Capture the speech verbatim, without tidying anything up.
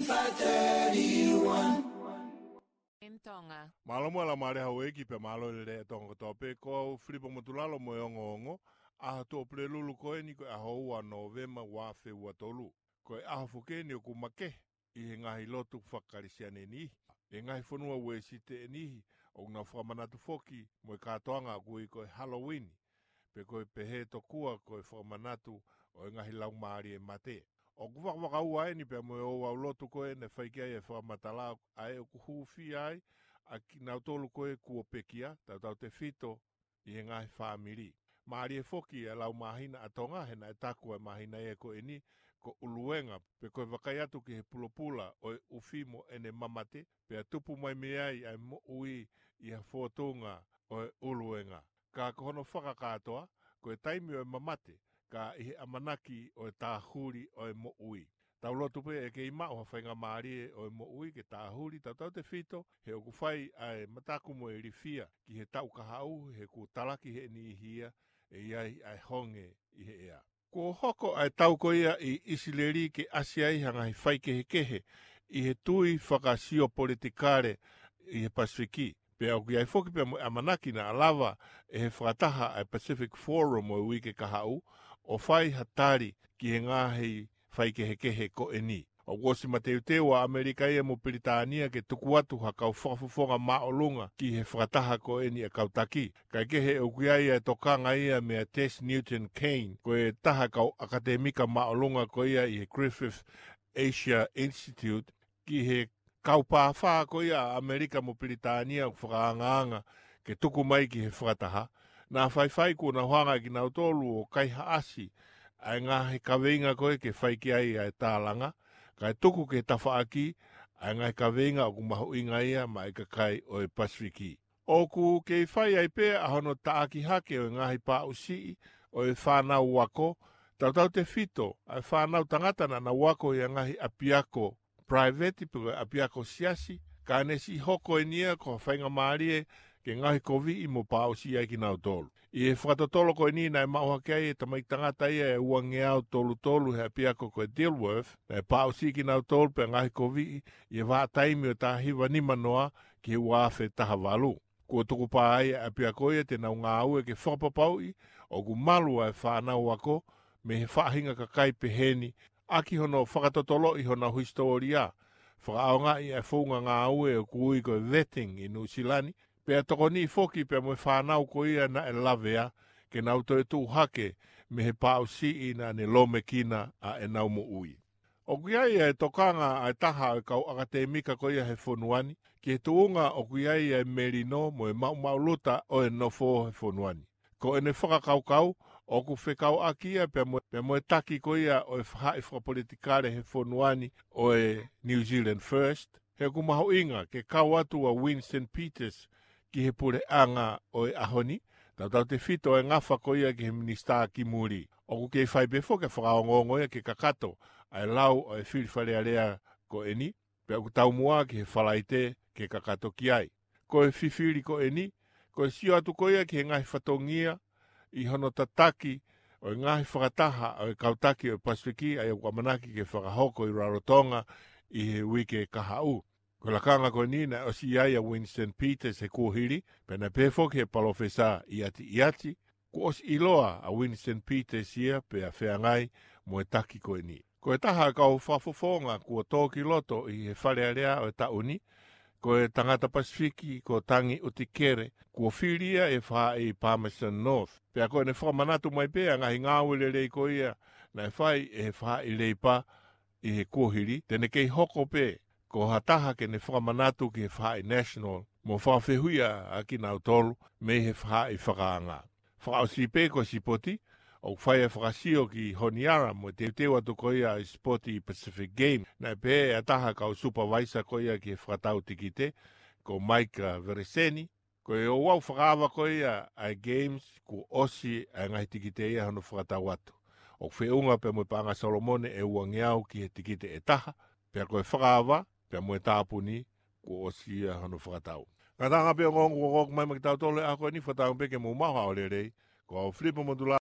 five thirty-one. Mālō mo e laumālie houʻeiki pea mālō e lelei ʻa Tonga kotoa pē. Ko au Filipo Motulalo mo e ongoongo, ʻaho Tuʻapulelulu ko eni ko e ʻaho ua Nōvema ua afe ua tolu. Ko e ʻaho foki eni ʻoku makehe ʻi he ngaahi lotu faka-Kalisitiane ʻe niʻihi. ʻI he ngaahi fonua Uēsite ʻe niʻihi ʻoku nau fakamanatu foki mo e kātoanga ʻoku ui ko e Halloween, pe ko e pehē tokua ko e fakamanatu ʻo e ngaahi laumālie mate. ʻOku vakavakaua eni pea mo e ouau lotu ko ē naʻe fai ki ai e fakamatala ʻa ē ʻoku hūfia ai ʻa kinautolu ko ē kuo pekia, tautautefito ʻi he ngaahi fāmili. Mālie foki e lau māhina ʻa Tonga, he naʻe taku e māhina ia ko eni ko ʻUluega, pe ko e vakai atu ki he pulopula ʻo e ʻufi mo ʻene mamate, pea tupu mai mei ai ʻa e moʻui ʻi ha fōtunga ʻo e ʻUluega. Ka ko hono fakakātoa, ko e taimi ʻo e mamate, ka ʻi he ʻamanaki ʻo e tāhuli ʻo e moʻui. Tau lotu pē ʻe kei maʻu ha faingamālie ʻo e moʻui ke tāhuli, tautautefito he ʻoku fai ʻa e mataku mo e ilifia ki he taʻu kahaʻu, he kuo talaki ʻe he niʻihi ia ʻe ʻi ai ʻa e honge ʻi he ʻea. Kuo hoko ʻa e tau ko ia ʻi ʻIsileli ke ʻasi ai ha ngaahi faikehekehe ʻi he tui fakasio politikale ʻi he Pasifiki. Pea ʻoku ʻi ai foki pea mo e ʻamanaki naʻa lava ʻe he fakataha ʻa e Pacific Forum ʻo e uike kahaʻu ʻo fai ha tali ki he ngaahi faikehekehe ko eni. ʻOku ʻosi mateuteu ʻa ʻAmelika ia mo Pilitānia ke tuku atu ha kau fakafofonga māʻolunga ki he fakataha ko eni ʻa e kau taki. Kaekehe ʻoku ʻi ai e tokanga ia meia Tess Newton Caine, ko e taha kau ʻakatemika māʻolunga ko ia ʻi he Griffith Asia Institute, ki he kau pāfā ko ia ʻa ʻAmelika mo Pilitānia ʻoku fakaangaanga ke tuku mai ki he fakataha. Naʻa faifai kuo nau hanga ʻe kinautolu ʻo kaihaʻasi ʻa e ngaahi kaveinga ko ē ke fai ki ai ʻa e tālanga, kae tuku ki he tafaʻaki ʻa e ngaahi kaveinga ʻoku mahuʻinga ia maʻa e kakai ʻo e Pasifiki. ʻOku kei fai ai pē ʻa hono taʻaki hake ʻo e ngaahi pāʻusiʻi ʻo e fānau ako, tautautefito ʻa e fānau tangata naʻa nau ako ʻi he ngaahi ʻapiako private pe ko e ʻapiako siasi, ka ne siʻi hoko eni ia ko ha faingamālie ke ngaohikoviʻi mo pāʻusiʻi ai kinautolu. ʻI he fakatotolo ko eni naʻe maʻu hake ai e tamaiki tangata ia ʻe uangeau tolu tolu he ʻapiako ko e Dilworth, naʻe pāʻusiʻi kinautolu pea ngaohikoviʻi ʻi he vahaʻa taimi ʻo e taha hiva nima noa ki he ua afe taha valu. Kuo tukupā ai ʻa e ʻapiako ia te nau ngāue ke fakapapauʻi ʻoku malu ʻa e fānau ako mei he faʻahinga kakai peheni, ʻaki hono fakatotoloʻi honau hisitōlia, fakaʻaongaʻi ʻa e founga ngāue ʻoku ui ko e vetting ʻi Nuʻusila ni, pea tokoniʻi foki pea mo e fānau ko ia naʻe lavea ke nau toe tuʻu hake mei he pāʻusiʻi naʻa ne lōmekina ʻa ʻenau moʻui. ʻOku ʻi ai e tokanga ʻa e taha ʻo e kau ʻakatemika ko ia he fonua ni ki he tuʻunga ʻoku ʻi ai e melino mo e maʻumaʻuluta ʻo e nofo he fonua ni. Ko ʻene fakakaukau, ʻoku fekauʻaki ia pea mo, pea mo e taki ko ia ʻo e faʻahi fakapolitikale he fonua ni ʻo e New Zealand First, he ʻoku mahuʻinga ke kau atu ʻa Winston Peters ki he puleʻanga ʻo e ʻaho ni, tautautefito e ngafa ko ia ki he minisitā ki muli. ʻOku kei fai pē foki e fakaongoongo ia ke kakato ʻa e lau ʻo e fili Fale Alea ko eni, pea ʻoku taumuʻa ki he Falaite ke kakato ki ai. Ko e fifili ko eni, ko e sio atu ko ia ki he ngaahi fatongia ʻi hono tataki ʻo e ngaahi fakataha ʻo e kau taki ʻo e Pasifiki ʻa ia ʻoku ʻamanaki ke fakahoko ʻi Rarotonga ʻi he uike kahaʻu. Ko e lakanga ko eni naʻe ʻosi ʻi ai ʻa Winston Peters he kuohili, pea naʻe pehē foki ʻe he palōfesa ʻIati ʻIati, kuo ʻosi ʻiloa ʻa Winston Peters ia pea feangai mo e taki ko eni. Ko e taha ʻo e kau fakafofonga kuo tō ki loto ʻi he Fale Alea ʻo e taʻu ni, ko e tangata Pasifiki ko Tangi ʻUtikere, kuo fili ia ʻi he faʻahi Palmerston North. Pea ko ʻene fakamanatu mai pē ʻa e ngaahi ngāue lelei ko ia naʻe fai ʻe he faʻahi Leipa ʻi he kuohili, te ne kei hoko pē ko ha taha ke ne fakamanatu ki he faʻahi National mo fakafehuʻia ʻa kinautolu mei he faʻahi fakaanga. Fakaʻosi pē ko e sipoti, ʻoku fai e fakasio ki Honiara mo e teuteu atu ko ia ʻa e sipoti Pacific Game. Naʻe pehē ʻe ha taha kau supervisor ko ia ki he fakatau tikite, ko Mike Vereseni, ko e ouau fakaava ko ia ʻa e Games, kuo ʻosi ʻa e ngaahi tikite ia hono fakatau atu. ʻOku feʻunga pea mo e paʻanga Solomone ʻe uangeau ki he tikite ʻe taha, pea ko e fakaava pea mo e tāpuni, kuo ʻosi ia hono fakatau. Ngataʻanga pē ongoongo kuo hoko mai maʻa kitautolu he ʻaho ko eni, fakatauange pē ke mou maʻu ha ʻaho lelei. Ko au Filipo Motulalo.